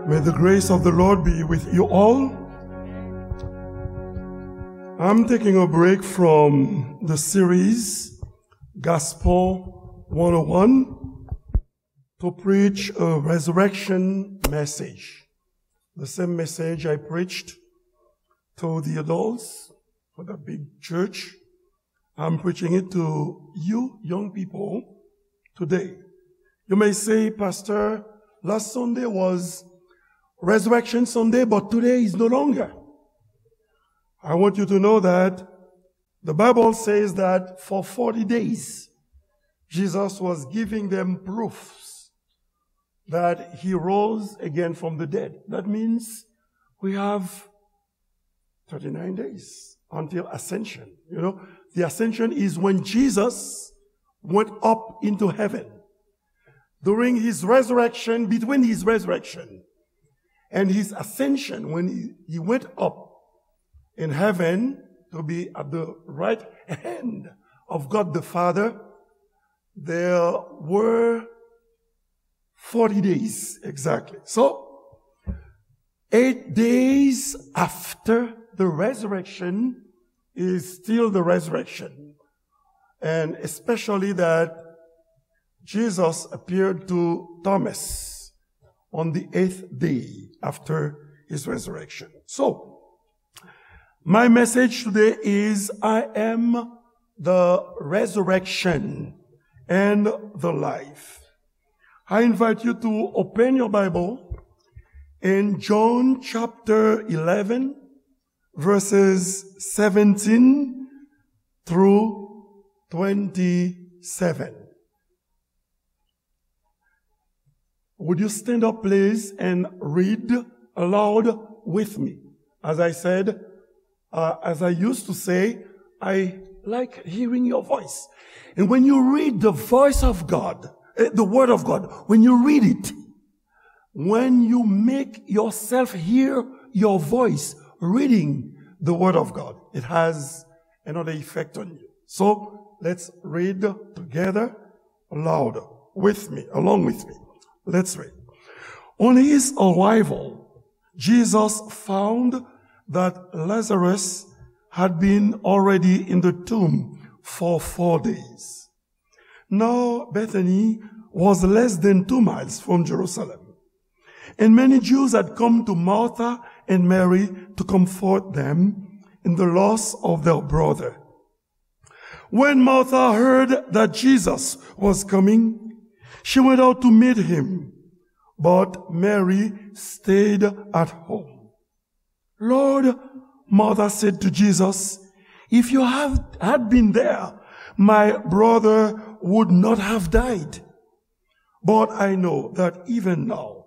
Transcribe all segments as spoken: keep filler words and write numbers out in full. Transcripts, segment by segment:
May the grace of the Lord be with you all. I'm taking a break from the series Gospel one oh one to preach a resurrection message. The same message I preached to the adults for the big church. I'm preaching it to you, young people, today. You may say, "Pastor, last Sunday was Resurrection Sunday, but today is no longer." I want you to know that the Bible says that for forty days, Jesus was giving them proofs that he rose again from the dead. That means we have thirty-nine days until ascension. You know, the ascension is when Jesus went up into heaven. During his resurrection, between his resurrection and his ascension, when he, he went up in heaven to be at the right hand of God the Father, there were forty days exactly. So, eight days after the resurrection is still the resurrection. And especially that Jesus appeared to Thomas on the eighth day after his resurrection. So, my message today is, "I am the resurrection and the life." I invite you to open your Bible in John chapter eleven, verses seventeen through twenty-seven. Would you stand up, please, and read aloud with me? As I said, uh, as I used to say, I like hearing your voice. And when you read the voice of God, eh, the word of God, when you read it, when you make yourself hear your voice reading the word of God, it has another effect on you. So let's read together, loud, with me, along with me. Let's read. On his arrival, Jesus found that Lazarus had been already in the tomb for four days. Now Bethany was less than two miles from Jerusalem, and many Jews had come to Martha and Mary to comfort them in the loss of their brother. When Martha heard that Jesus was coming, she went out to meet him, but Mary stayed at home. "Lord," Martha said to Jesus, "if you have, had been there, my brother would not have died. But I know that even now,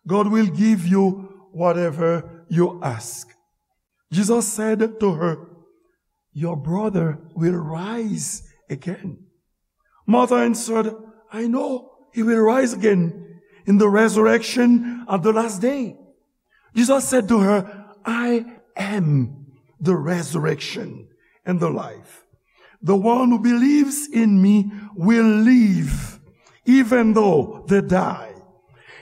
God will give you whatever you ask." Jesus said to her, "Your brother will rise again." Martha answered, "I know he will rise again in the resurrection at the last day." Jesus said to her, "I am the resurrection and the life. The one who believes in me will live even though they die.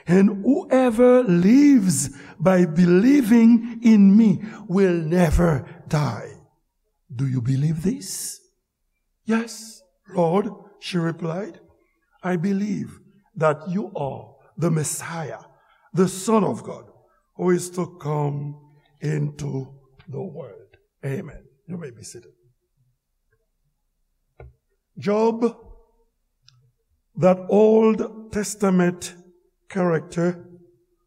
And whoever lives by believing in me will never die." "Do you believe this?" "Yes, Lord," she replied. "I believe that you are the Messiah, the Son of God, who is to come into the world." Amen. You may be seated. Job, that Old Testament character,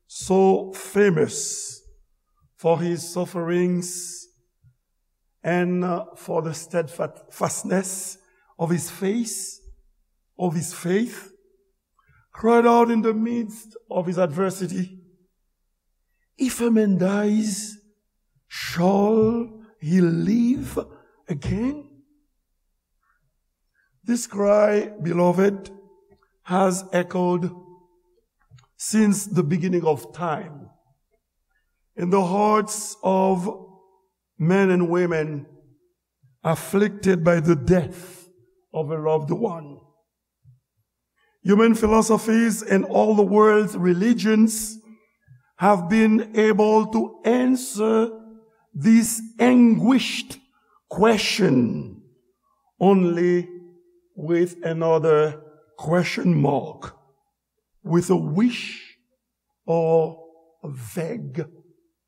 so famous for his sufferings and, uh, for the steadfastness of his faith, of his faith, cried out in the midst of his adversity, "If a man dies, shall he live again?" This cry, beloved, has echoed since the beginning of time in the hearts of men and women afflicted by the death of a loved one. Human philosophies and all the world's religions have been able to answer this anguished question only with another question mark, with a wish or vague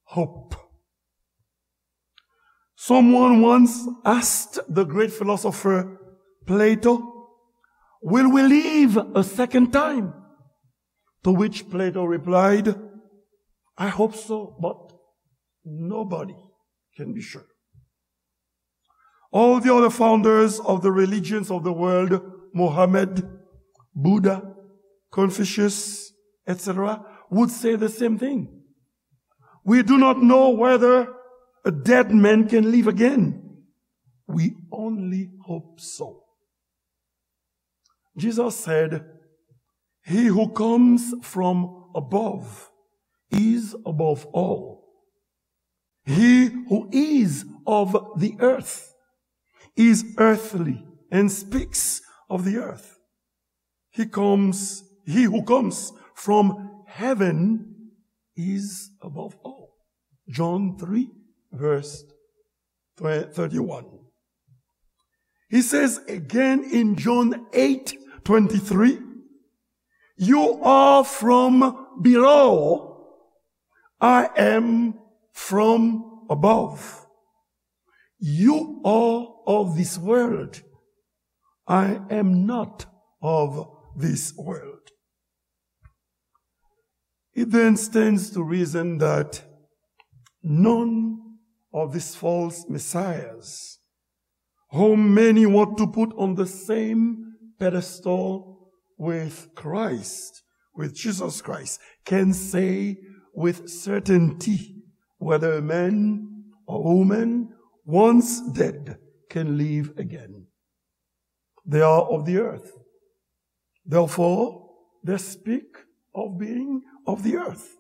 hope. Someone once asked the great philosopher Plato, "Will we live a second time?" To which Plato replied, "I hope so, but nobody can be sure." All the other founders of the religions of the world, Mohammed, Buddha, Confucius, et cetera, would say the same thing. "We do not know whether a dead man can live again. We only hope so." Jesus said, "He who comes from above is above all. He who is of the earth is earthly and speaks of the earth. He comes, he who comes from heaven is above all." John three, verse thirty-one. He says again in John eight twenty-three, "You are from below, I am from above. You are of this world, I am not of this world." It then stands to reason that none of these false messiahs, whom many want to put on the same pedestal with Christ, with Jesus Christ, can say with certainty whether a man or woman once dead can live again. They are of the earth. Therefore, they speak of being of the earth.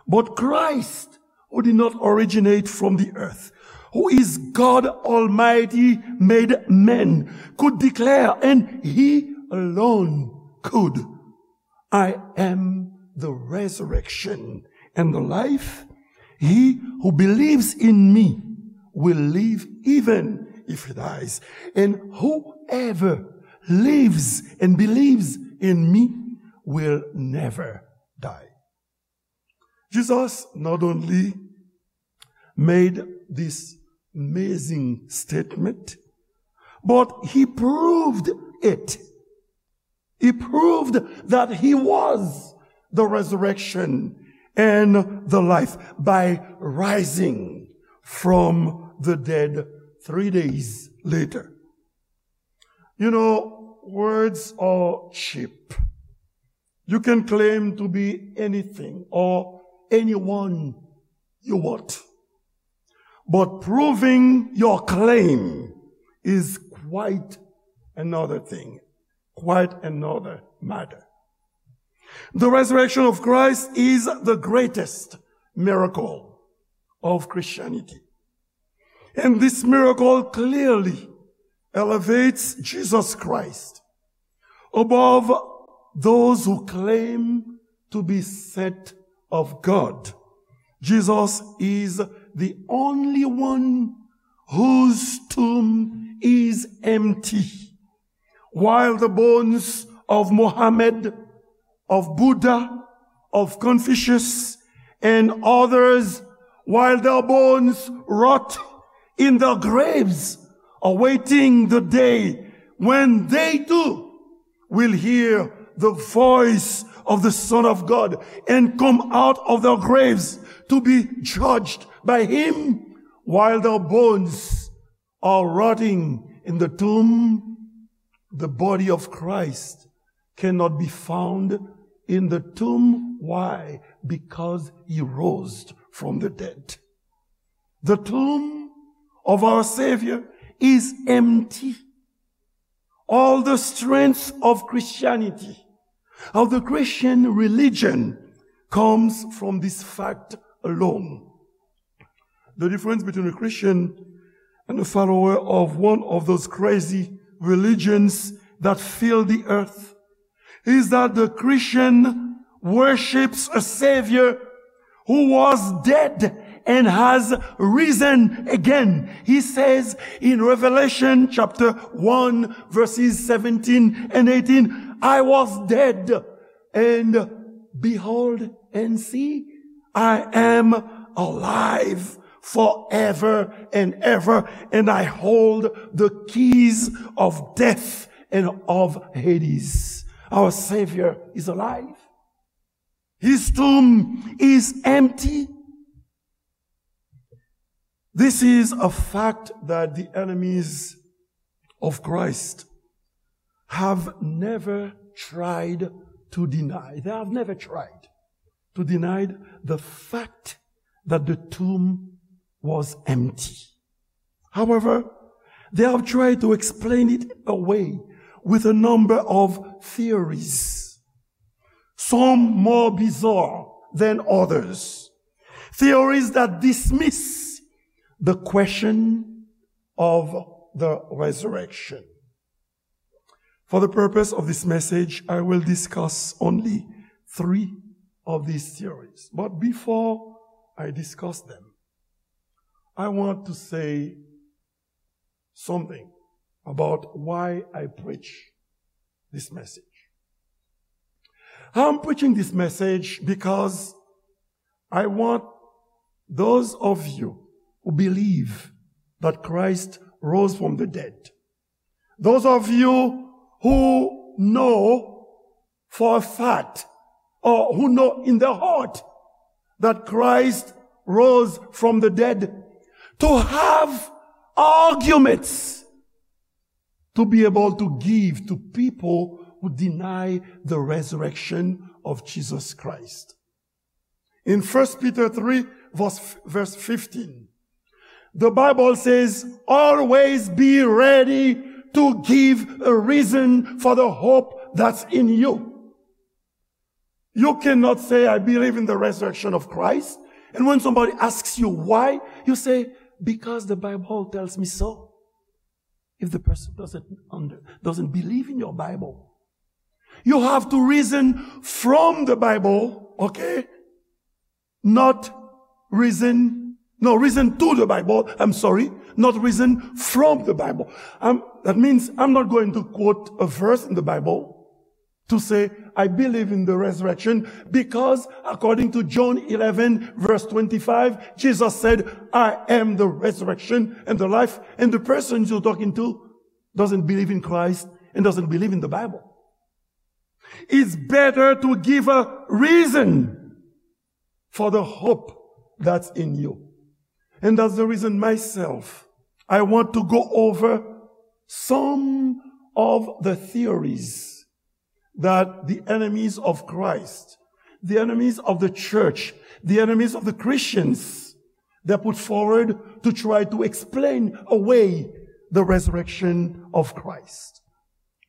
But Christ, who did not originate from the earth, who is God Almighty made man, could declare, and he alone could, "I am the resurrection and the life. He who believes in me will live even if he dies. And whoever lives and believes in me will never die." Jesus not only made this amazing statement, but he proved it. He proved that he was the resurrection and the life by rising from the dead three days later. You know, words are cheap. You can claim to be anything or anyone you want. But proving your claim is quite another thing, quite another matter. The resurrection of Christ is the greatest miracle of Christianity. And this miracle clearly elevates Jesus Christ above those who claim to be sent of God. Jesus is the only one whose tomb is empty. While the bones of Mohammed, of Buddha, of Confucius, and others, while their bones rot in their graves, awaiting the day when they too will hear the voice of the Son of God and come out of their graves to be judged by him, while their bones are rotting in the tomb, the body of Christ cannot be found in the tomb. Why? Because he rose from the dead. The tomb of our Savior is empty. All the strength of Christianity, of the Christian religion, comes from this fact alone. The difference between a Christian and a follower of one of those crazy religions that fill the earth is that the Christian worships a Savior who was dead and has risen again. He says in Revelation chapter one, verses seventeen and eighteen, "I was dead, and behold, and see, I am alive forever and ever, and I hold the keys of death and of Hades." Our Savior is alive. His tomb is empty. This is a fact that the enemies of Christ have never tried to deny. They have never tried to deny the fact that the tomb was empty. However, they have tried to explain it away with a number of theories, some more bizarre than others. Theories that dismiss the question of the resurrection. For the purpose of this message, I will discuss only three of these theories. But before I discuss them, I want to say something about why I preach this message. I'm preaching this message because I want those of you who believe that Christ rose from the dead, those of you who know for a fact or who know in their heart that Christ rose from the dead, to have arguments to be able to give to people who deny the resurrection of Jesus Christ. In First Peter three, verse, verse fifteen, the Bible says, "Always be ready to give a reason for the hope that's in you." You cannot say, "I believe in the resurrection of Christ," and when somebody asks you why, you say, "Because the Bible tells me so." If the person doesn't under, doesn't believe in your Bible, you have to reason from the Bible, okay? Not reason, no, reason to the Bible, I'm sorry, not reason from the Bible. Um, that means I'm not going to quote a verse in the Bible to say, "I believe in the resurrection," because according to John eleven, verse twenty-five, Jesus said, "I am the resurrection and the life." And the person you're talking to doesn't believe in Christ and doesn't believe in the Bible. It's better to give a reason for the hope that's in you. And that's the reason myself, I want to go over some of the theories that the enemies of Christ, the enemies of the church, the enemies of the Christians, they put forward to try to explain away the resurrection of Christ.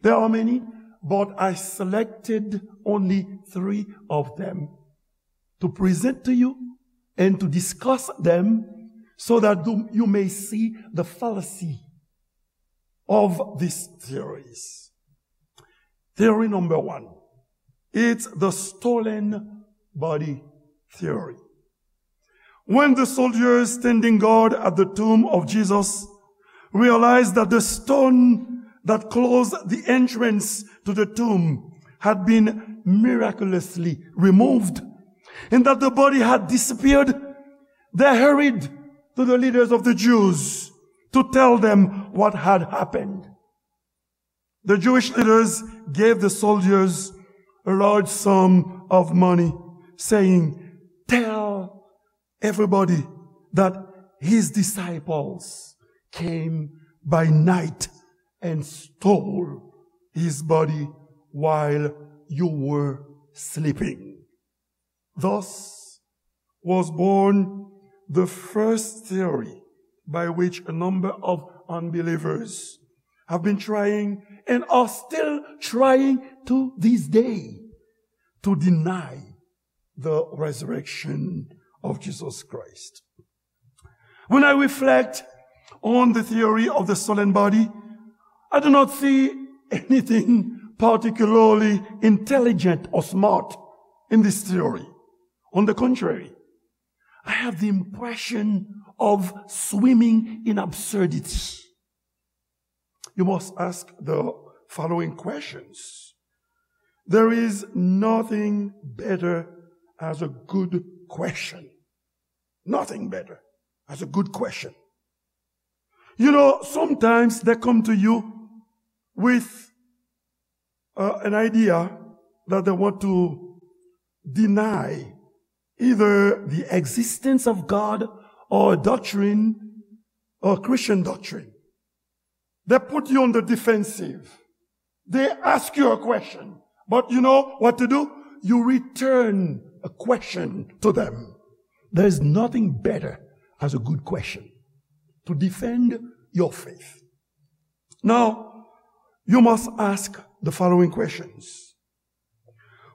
There are many, but I selected only three of them to present to you and to discuss them so that you may see the fallacy of these theories. Theory number one, it's the stolen body theory. When the soldiers standing guard at the tomb of Jesus realized that the stone that closed the entrance to the tomb had been miraculously removed and that the body had disappeared, they hurried to the leaders of the Jews to tell them what had happened. The Jewish leaders gave the soldiers a large sum of money, saying, "Tell everybody that his disciples came by night and stole his body while you were sleeping." Thus was born the first theory by which a number of unbelievers have been trying and are still trying to this day to deny the resurrection of Jesus Christ. When I reflect on the theory of the stolen body, I do not see anything particularly intelligent or smart in this theory. On the contrary, I have the impression of swimming in absurdity. You must ask the following questions. There is nothing better as a good question. Nothing better as a good question. You know, sometimes they come to you with uh, an idea that they want to deny either the existence of God or a doctrine or Christian doctrine. They put you on the defensive. They ask you a question. But you know what to do? You return a question to them. There is nothing better as a good question to defend your faith. Now, you must ask the following questions.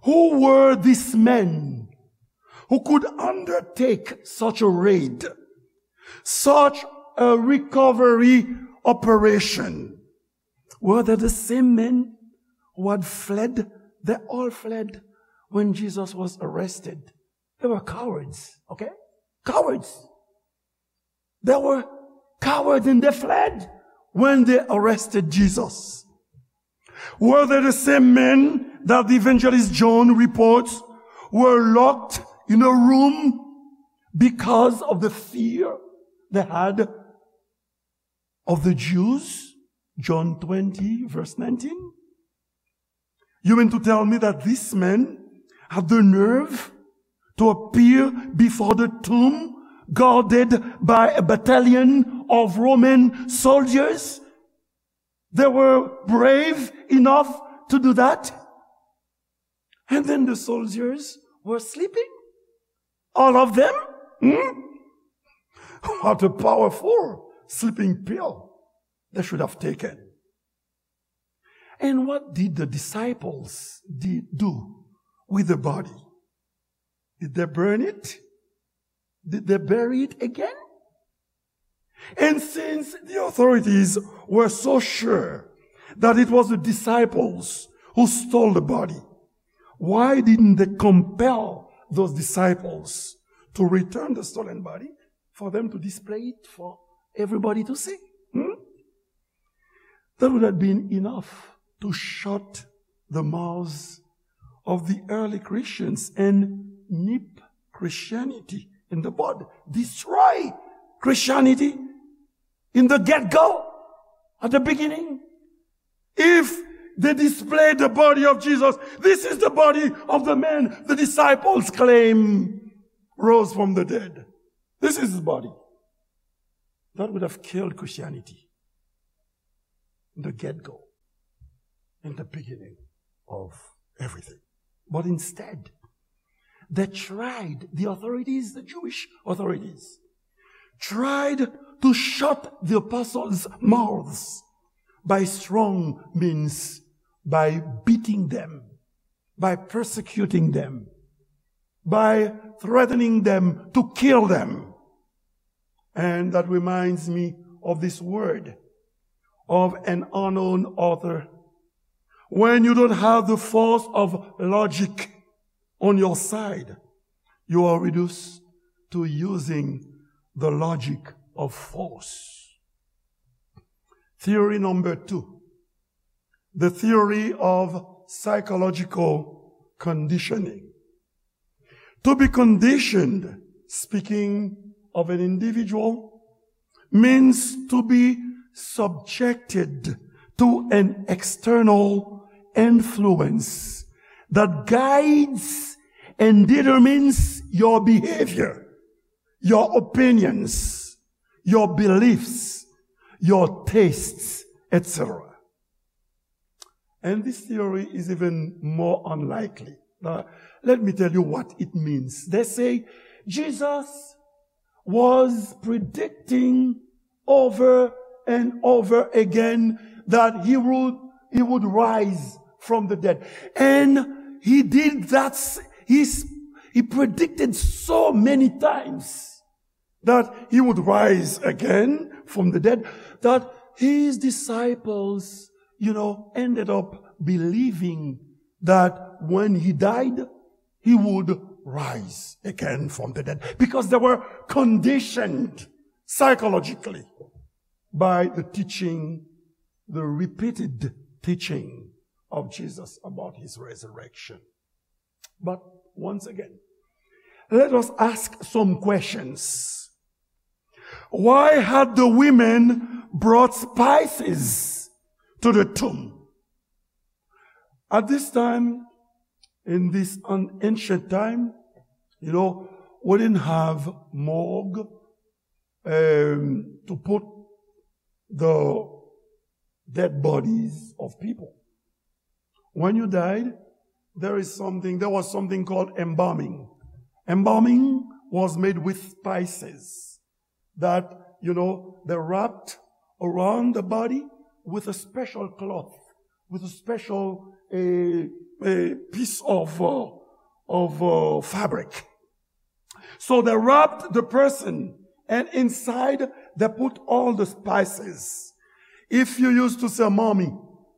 Who were these men who could undertake such a raid, such a recovery operation? Were they the same men who had fled? They all fled when Jesus was arrested. They were cowards, okay? Cowards. They were cowards and they fled when they arrested Jesus. Were they the same men that the evangelist John reports were locked in a room because of the fear they had of the Jews? John twenty, verse nineteen. You mean to tell me that this man had the nerve to appear before the tomb guarded by a battalion of Roman soldiers? They were brave enough to do that. And then the soldiers were sleeping. All of them? Hmm? What a powerful sleeping pill they should have taken. And what did the disciples did do with the body? Did they burn it? Did they bury it again? And since the authorities were so sure that it was the disciples who stole the body, why didn't they compel those disciples to return the stolen body for them to display it for everybody to see? Hmm? That would have been enough to shut the mouths of the early Christians and nip Christianity in the bud, destroy Christianity in the get-go, at the beginning. If they display the body of Jesus, this is the body of the man the disciples claim rose from the dead. This is his body. That would have killed Christianity in the get-go, in the beginning of everything. But instead, they tried, the authorities, the Jewish authorities, tried to shut the apostles' mouths by strong means, by beating them, by persecuting them, by threatening them to kill them. And that reminds me of this word of an unknown author. When you don't have the force of logic on your side, you are reduced to using the logic of force. Theory number two, the theory of psychological conditioning. To be conditioned, speaking of an individual, means to be subjected to an external influence that guides and determines your behavior, your opinions, your beliefs, your tastes, et cetera. And this theory is even more unlikely. Now, let me tell you what it means. They say Jesus was predicting over and over again that he would, he would rise from the dead. And he did that. He predicted so many times that he would rise again from the dead, that his disciples, you know, ended up believing that when he died, he would rise again from the dead, because they were conditioned psychologically by the teaching, the repeated teaching of Jesus about his resurrection. But once again, let us ask some questions. Why had the women brought spices to the tomb? At this time, in this an-, ancient time, you know, we didn't have morgue, um, to put the dead bodies of people. When you died, there is something, there was something called embalming. Embalming was made with spices that, you know, they wrapped around the body with a special cloth, with a special, uh, uh, piece of, uh, of, uh, fabric. So they wrapped the person, and inside they put all the spices. If you used to see a mummy,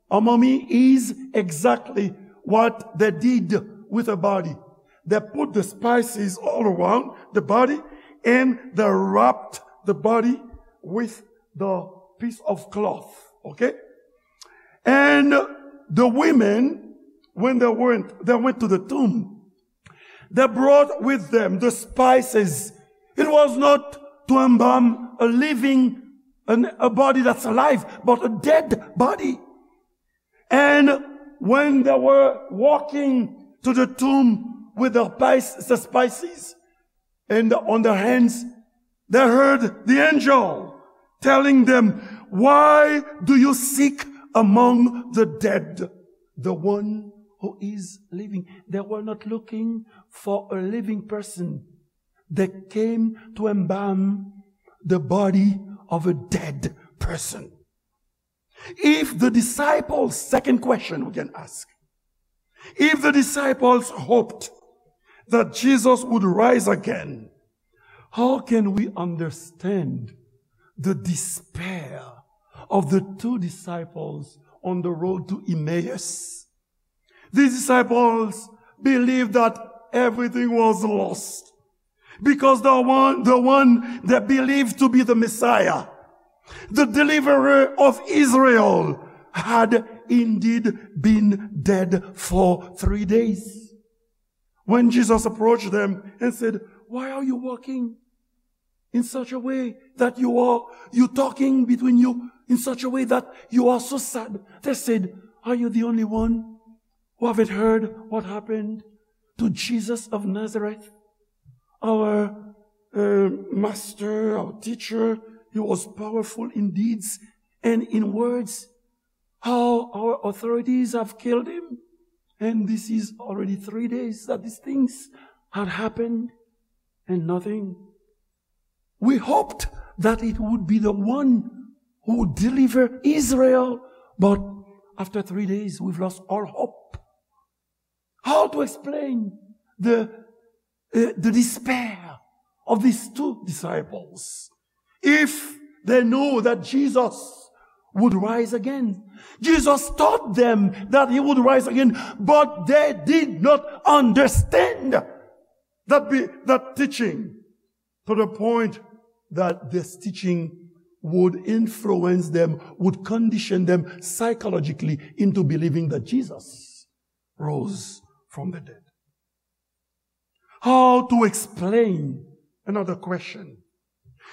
a mummy is exactly what they did with a body. They put the spices all around the body, and they wrapped the body with the piece of cloth. Okay? And the women, when they went, they went to the tomb, they brought with them the spices. It was not to embalm a living, an, a body that's alive, but a dead body. And when they were walking to the tomb with the spice-, the spices and on their hands, they heard the angel telling them, "Why do you seek among the dead the one who is living?" They were not looking for a living person. They came to embalm the body of a dead person. If the disciples, second question we can ask, if the disciples hoped that Jesus would rise again, how can we understand the despair of the two disciples on the road to Emmaus? These disciples believed that everything was lost because the one, the one they believed to be the Messiah, the deliverer of Israel, had indeed been dead for three days. When Jesus approached them and said, "Why are you walking in such a way that you are, you talking between you in such a way that you are so sad?" They said, "Are you the only one who haven't heard what happened to Jesus of Nazareth? Our, uh, master, our teacher, he was powerful in deeds and in words. How our authorities have killed him. And this is already three days that these things had happened and nothing. We hoped that it would be the one who would deliver Israel, but after three days, we've lost all hope." How to explain the, uh, the despair of these two disciples if they know that Jesus would rise again? Jesus taught them that he would rise again, but they did not understand that be-, that teaching to the point that this teaching would influence them, would condition them psychologically into believing that Jesus rose from the dead. How to explain, another question,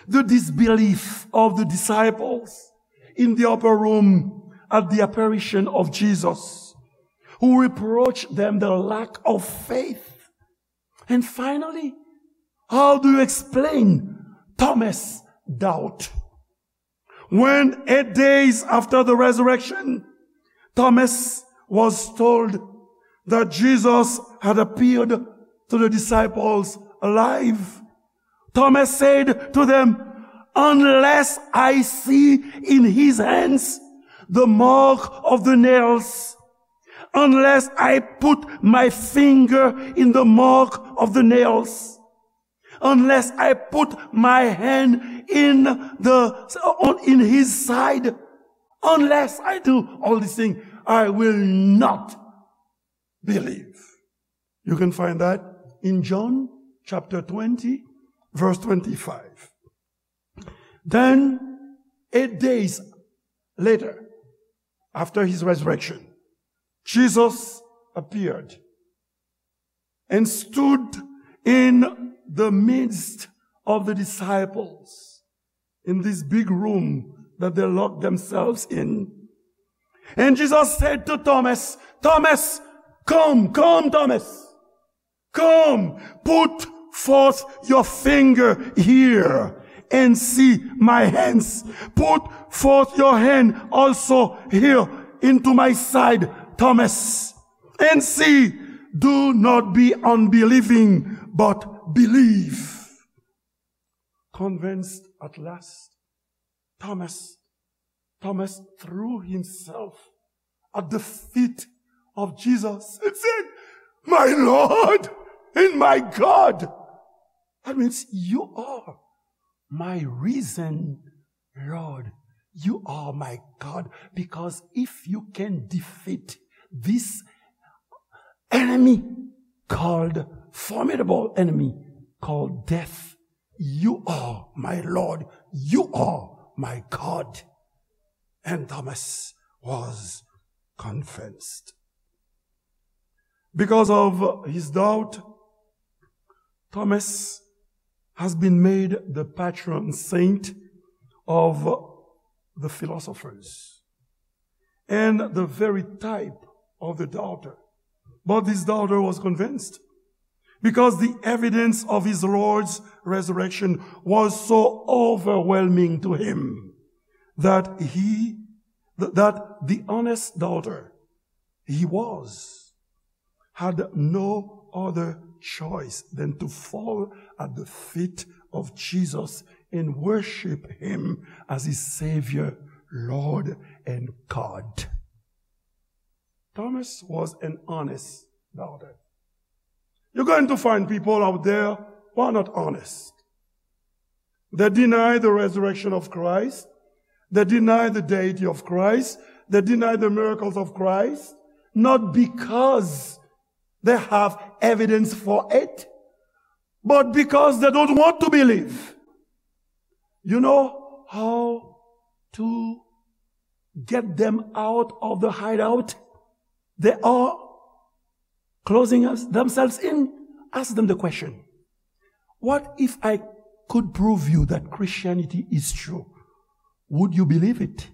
the disbelief of the disciples in the upper room at the apparition of Jesus, who reproached them the lack of faith? And finally, how do you explain Thomas' doubt? When, eight days after the resurrection, Thomas was told that Jesus had appeared to the disciples alive, Thomas said to them, "Unless I see in his hands the mark of the nails, unless I put my finger in the mark of the nails, unless I put my hand in the, in his side, unless I do all these things, I will not believe." You can find that in John chapter twenty, verse twenty-five. Then, eight days later, after his resurrection, Jesus appeared and stood in the midst of the disciples in this big room that they locked themselves in. And Jesus said to Thomas, "Thomas, come, come, Thomas. Come, put forth your finger here and see my hands. Put forth your hand also here into my side, Thomas, and see. Do not be unbelieving, but believe." Convinced at last, Thomas, Thomas threw himself at the feet of Jesus and said, "My Lord and my God." That means, "You are my risen Lord. You are my God." Because if you can defeat this enemy called, formidable enemy called death, "You are my Lord. You are my God." And Thomas was convinced. Because of his doubt, Thomas has been made the patron saint of the philosophers and the very type of the doubter. But this doubter was convinced because the evidence of his Lord's resurrection was so overwhelming to him that he, th-, that the honest doubter he was had no other choice than to fall at the feet of Jesus and worship him as his Savior, Lord, and God. Thomas was an honest doubter. You're going to find people out there who are not honest. They deny the resurrection of Christ. They deny the deity of Christ. They deny the miracles of Christ, not because they have evidence for it, but because they don't want to believe. You know how to get them out of the hideout they are closing us, themselves in? Ask them the question, "What if I could prove you that Christianity is true? Would you believe it?"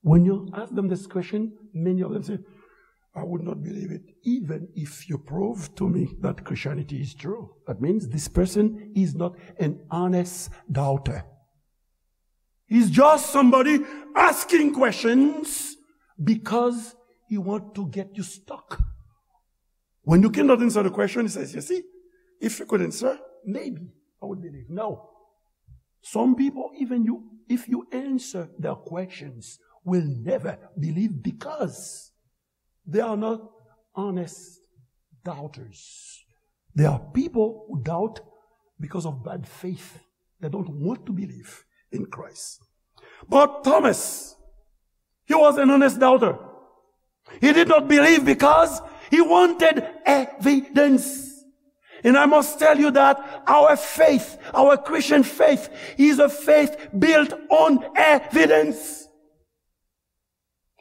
When you ask them this question, many of them say, "I would not believe it, even if you prove to me that Christianity is true." That means this person is not an honest doubter. He's just somebody asking questions because he wants to get you stuck. When you cannot answer the question, he says, "You see, if you could answer, maybe I would believe." No. Some people, even you, if you answer their questions, will never believe because they are not honest doubters. They are people who doubt because of bad faith. They don't want to believe in Christ. But Thomas, he was an honest doubter. He did not believe because he wanted evidence. And I must tell you that our faith, our Christian faith, is a faith built on evidence.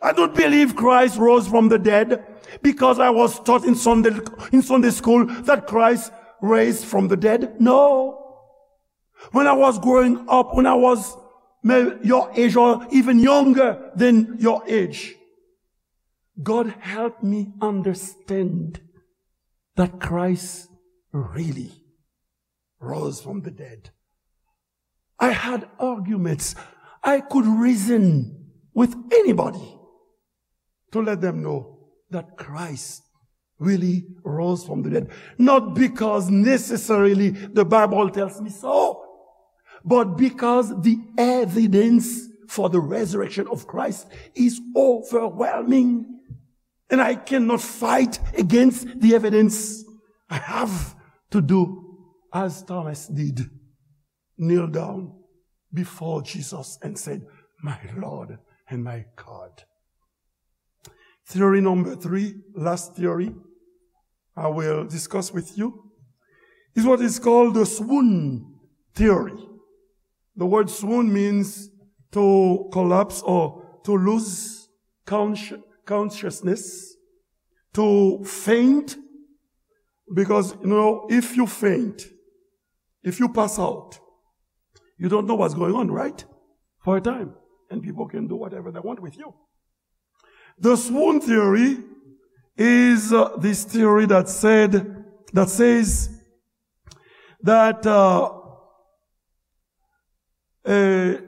I don't believe Christ rose from the dead because I was taught in Sunday, in Sunday school that Christ raised from the dead. No. When I was growing up, when I was may-, your age or even younger than your age, God helped me understand that Christ really rose from the dead. I had arguments. I could reason with anybody to let them know that Christ really rose from the dead. Not because necessarily the Bible tells me so, but because the evidence for the resurrection of Christ is overwhelming. And I cannot fight against the evidence. I have to do as Thomas did, kneel down before Jesus and said, "My Lord and my God." Theory number three, last theory I will discuss with you, is what is called the swoon theory. The word swoon means to collapse or to lose consci-, consciousness, to faint, because, you know, if you faint, if you pass out, you don't know what's going on, right? For a time. And people can do whatever they want with you. The swoon theory is, uh, this theory that said, that says that, uh, uh,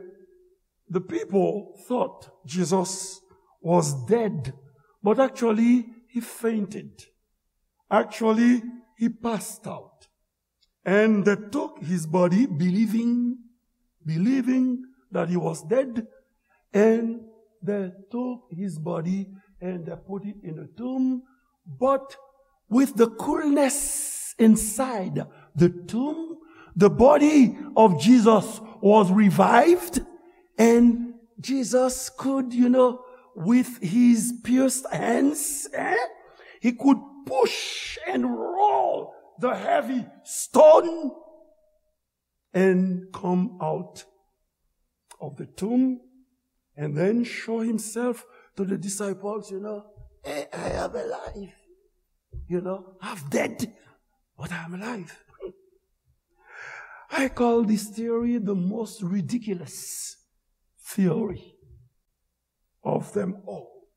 the people thought Jesus was dead, but actually he fainted. Actually, he passed out. And they took his body, believing, believing that he was dead. And they took his body and they put it in the tomb. But with the coolness inside the tomb, the body of Jesus was revived, and Jesus could, you know, with his pierced hands, eh, he could push and roll the heavy stone and come out of the tomb and then show himself to the disciples, you know, "Hey, I am alive. You know, I'm dead, but I'm alive." I call this theory the most ridiculous theory of them all.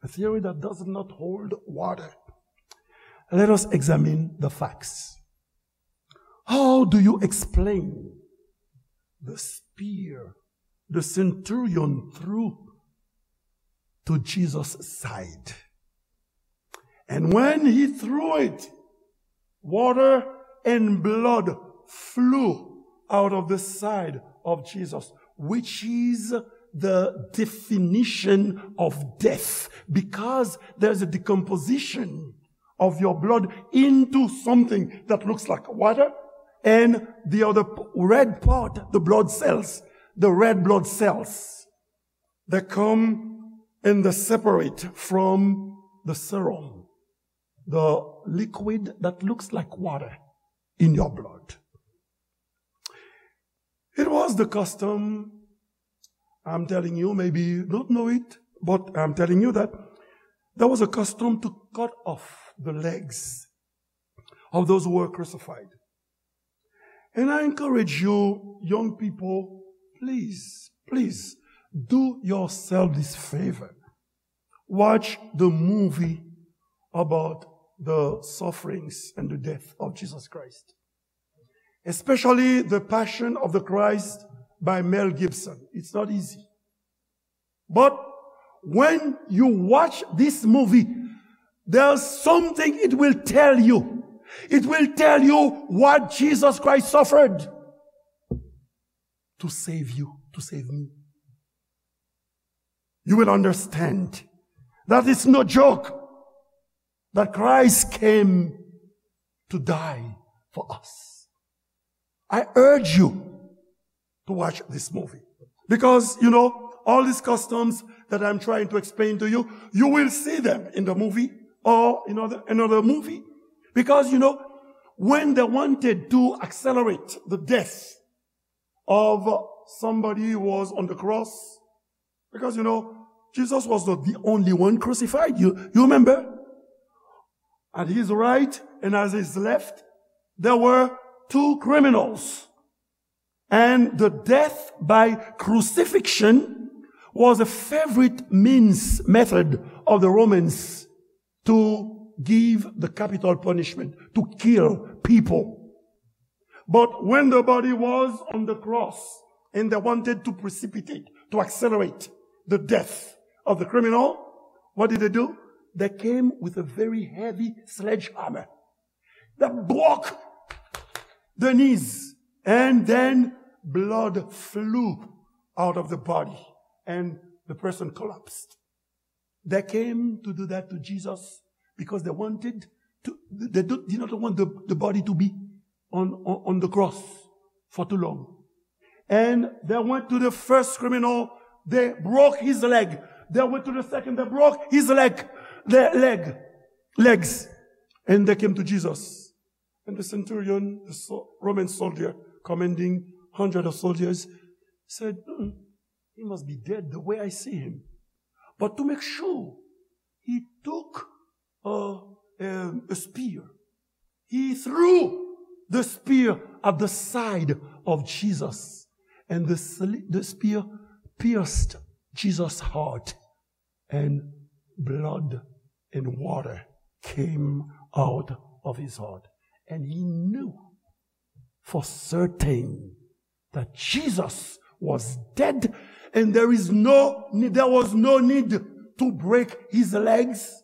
A theory that does not hold water. Let us examine the facts. How do you explain the spear the centurion threw to Jesus' side? And when he threw it, water and blood flew out of the side of Jesus, which is the definition of death, because there's a decomposition of your blood into something that looks like water, and the other p-, red part, the blood cells, the red blood cells, they come and they separate from the serum, the liquid that looks like water in your blood. It was the custom, I'm telling you, maybe you don't know it, but I'm telling you that there was a custom to cut off the legs of those who were crucified. And I encourage you, young people, please, please do yourself this favor. Watch the movie about the sufferings and the death of Jesus Christ, especially The Passion of the Christ by Mel Gibson. It's not easy. But when you watch this movie, there's something it will tell you. It will tell you what Jesus Christ suffered to save you, to save me. You will understand that it's no joke that Christ came to die for us. I urge you to watch this movie. Because, you know, all these customs that I'm trying to explain to you, you will see them in the movie or in other, another movie. Because, you know, when they wanted to accelerate the death of somebody who was on the cross, because, you know, Jesus was not the only one crucified. You, you remember? At his right and at his left, there were two criminals. And the death by crucifixion was a favorite means, method of the Romans to give the capital punishment, to kill people. But when the body was on the cross and they wanted to precipitate, to accelerate the death of the criminal, what did they do? They came with a very heavy sledgehammer that broke the knees, and then blood flew out of the body, and the person collapsed. They came to do that to Jesus because they wanted to, they do, did not want the, the body to be on, on, on the cross for too long. And they went to the first criminal, they broke his leg. They went to the second, they broke his leg, their leg, legs. And they came to Jesus. And the centurion, the so-, Roman soldier commanding hundred of soldiers, said, "Mm, he must be dead the way I see him." But to make sure, he took a, a, a spear. He threw the spear at the side of Jesus, and the sli-, the spear pierced Jesus' heart, and blood and water came out of his heart. And he knew for certain that Jesus was dead, and there is no, there was no need to break his legs,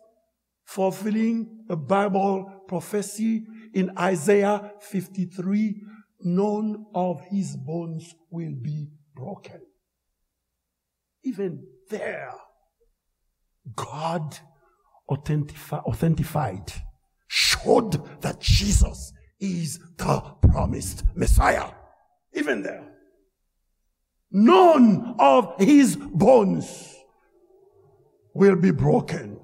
fulfilling a Bible prophecy in Isaiah fifty-three, "None of his bones will be broken." Even there, God authentifi-, authentified, showed that Jesus is the promised Messiah. Even there, none of his bones will be broken.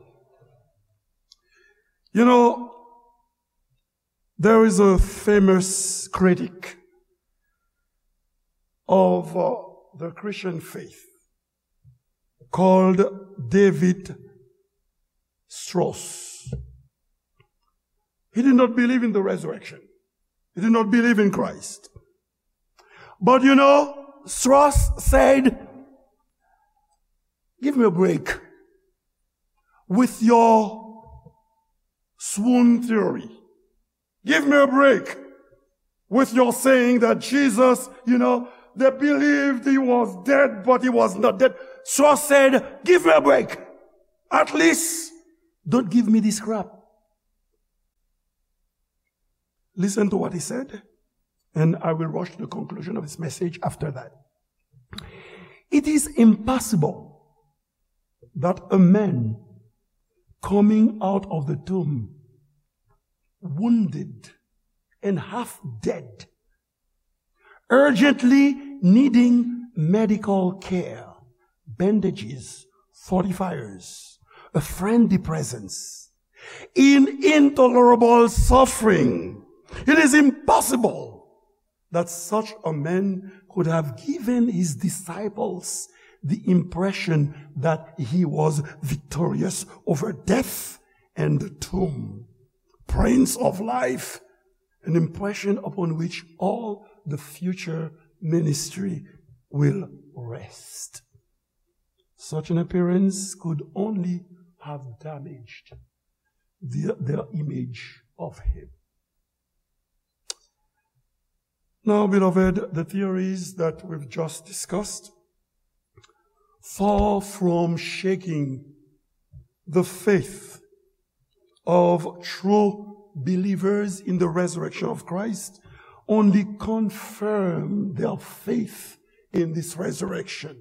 You know, there is a famous critic of, uh, the Christian faith called David Strauss. He did not believe in the resurrection. He did not believe in Christ. But you know, Strauss said, "Give me a break with your swoon theory. Give me a break with your saying that Jesus, you know, they believed he was dead, but he was not dead." Strauss said, "Give me a break. At least don't give me this crap." Listen to what he said, and I will rush to the conclusion of this message after that. It is impossible that a man coming out of the tomb, wounded and half dead, urgently needing medical care, bandages, fortifiers, a friendly presence, in intolerable suffering. It is impossible that such a man could have given his disciples the impression that he was victorious over death and the tomb, Prince of Life, an impression upon which all the future ministry will rest. Such an appearance could only have damaged the, their image of him. Now, beloved, the theories that we've just discussed, far from shaking the faith of true believers in the resurrection of Christ, only confirm their faith in this resurrection.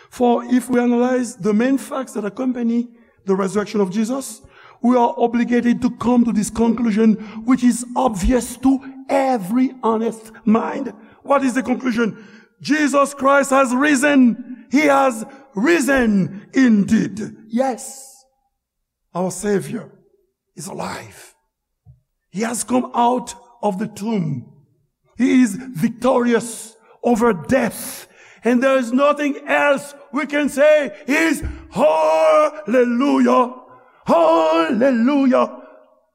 For if we analyze the main facts that accompany the resurrection of Jesus, we are obligated to come to this conclusion, which is obvious to every honest mind. What is the conclusion? Jesus Christ has risen. He has risen indeed. Yes, our Savior is alive. He has come out of the tomb. He is victorious over death. And there is nothing else we can say is hallelujah, hallelujah,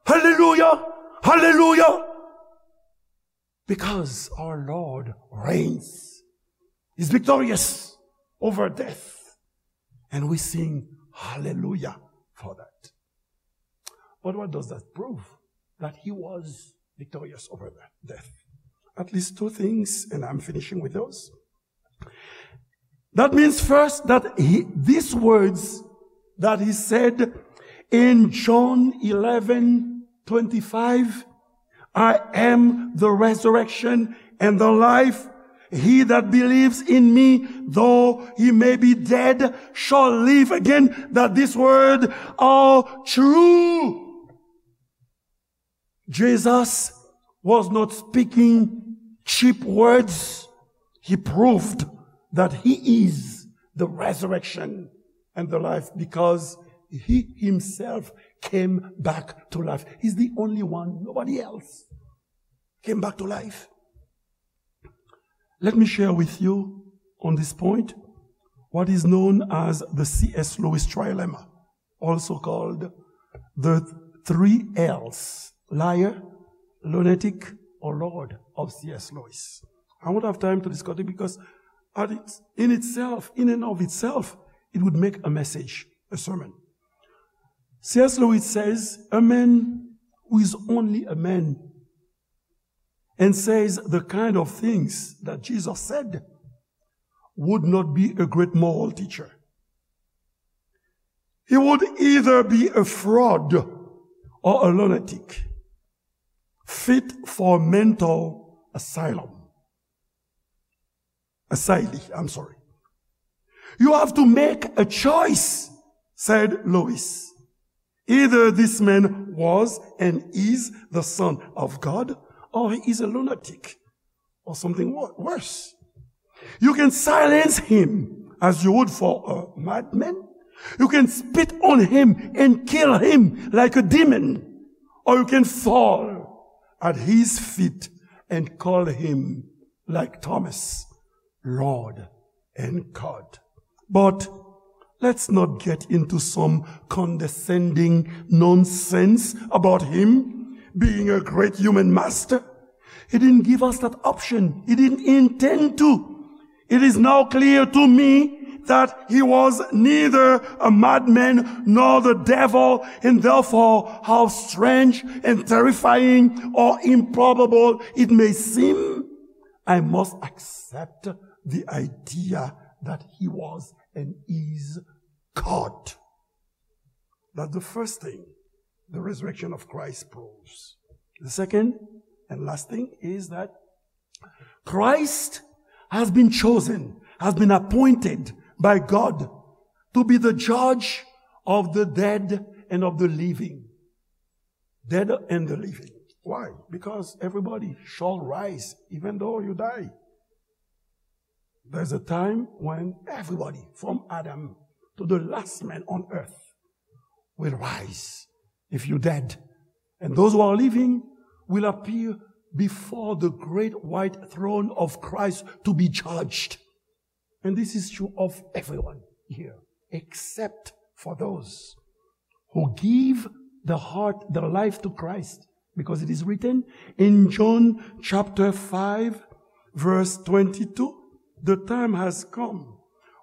hallelujah, hallelujah. Because our Lord reigns. He's victorious over death. And we sing hallelujah for that. But what does that prove? That he was victorious over the death. At least two things, and I'm finishing with those. That means first that he, these words that he said in John eleven twenty-five, "I am the resurrection and the life. He that believes in me, though he may be dead, shall live again." That this word are true. Jesus was not speaking cheap words. He proved that he is the resurrection and the life because he himself came back to life. He's the only one, nobody else came back to life. Let me share with you on this point what is known as the C S Lewis trilemma, also called the three L's, liar, lunatic, or Lord of C S Lewis. I won't have time to discuss it because at it, in itself, in and of itself, it would make a message, a sermon. C S Lewis says, a man who is only a man and says the kind of things that Jesus said would not be a great moral teacher. He would either be a fraud or a lunatic, fit for mental asylum. Asylee, I'm sorry. You have to make a choice, said Lewis. Either this man was and is the Son of God, or he is a lunatic, or something wo-, worse. You can silence him as you would for a madman. You can spit on him and kill him like a demon. Or you can fall at his feet and call him, like Thomas, Lord and God. But let's not get into some condescending nonsense about him being a great human master. He didn't give us that option. He didn't intend to. It is now clear to me that he was neither a madman nor the devil, and therefore, how strange and terrifying or improbable it may seem, I must accept the idea that he was and is God. That's the first thing the resurrection of Christ proves. The second and last thing is that Christ has been chosen, has been appointed by God to be the judge of the dead and of the living. Dead and the living. Why? Because everybody shall rise, even though you die. There's a time when everybody, from Adam to the last man on earth, will rise. If you're dead, and those who are living will appear before the great white throne of Christ to be judged. And this is true of everyone here, except for those who give the heart, the life to Christ. Because it is written in John chapter five, verse twenty-two, the time has come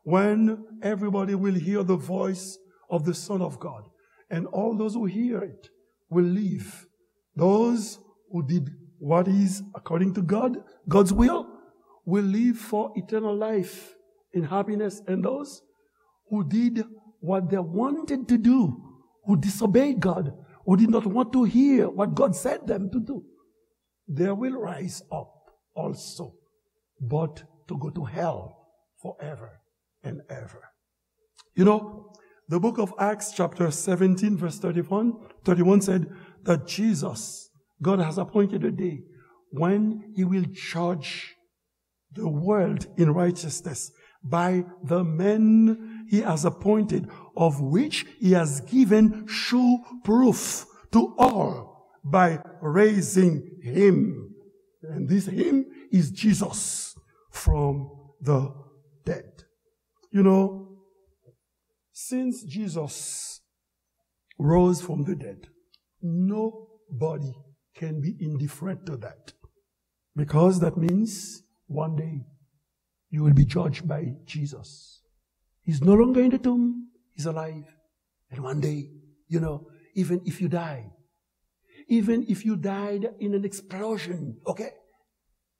when everybody will hear the voice of the Son of God. And all those who hear it will live. Those who did what is according to God, God's will, will live for eternal life in happiness. And those who did what they wanted to do, who disobeyed God, who did not want to hear what God said them to do, they will rise up also, but to go to hell forever and ever. You know, the book of Acts, chapter seventeen, verse thirty-one, thirty-one said that Jesus, God has appointed a day when he will judge the world in righteousness by the man he has appointed, of which he has given sure proof to all by raising him. And this him is Jesus from the dead. You know, since Jesus rose from the dead, nobody can be indifferent to that. Because that means one day you will be judged by Jesus. He's no longer in the tomb, he's alive. And one day, you know, even if you die, even if you died in an explosion, okay,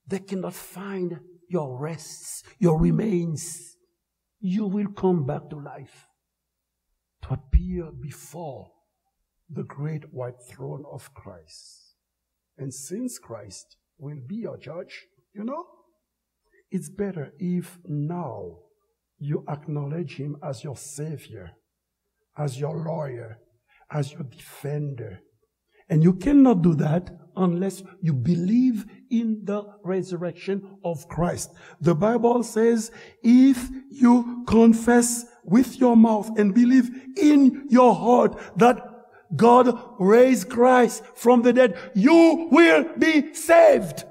they cannot find your rests, your remains. You will come back to life to appear before the great white throne of Christ. And since Christ will be your judge, you know, it's better if now you acknowledge him as your savior, as your lawyer, as your defender. And you cannot do that unless you believe in the resurrection of Christ. The Bible says, if you confess with your mouth and believe in your heart that God raised Christ from the dead. You will be saved.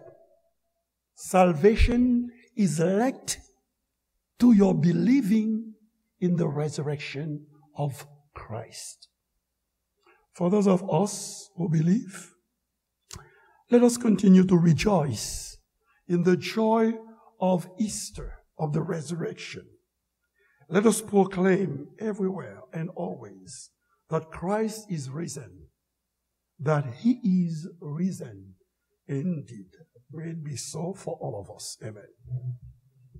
Salvation is linked to your believing in the resurrection of Christ. For those of us who believe, let us continue to rejoice in the joy of Easter, of the resurrection. Let us proclaim everywhere and always that Christ is risen, that he is risen indeed. May it be so for all of us. Amen.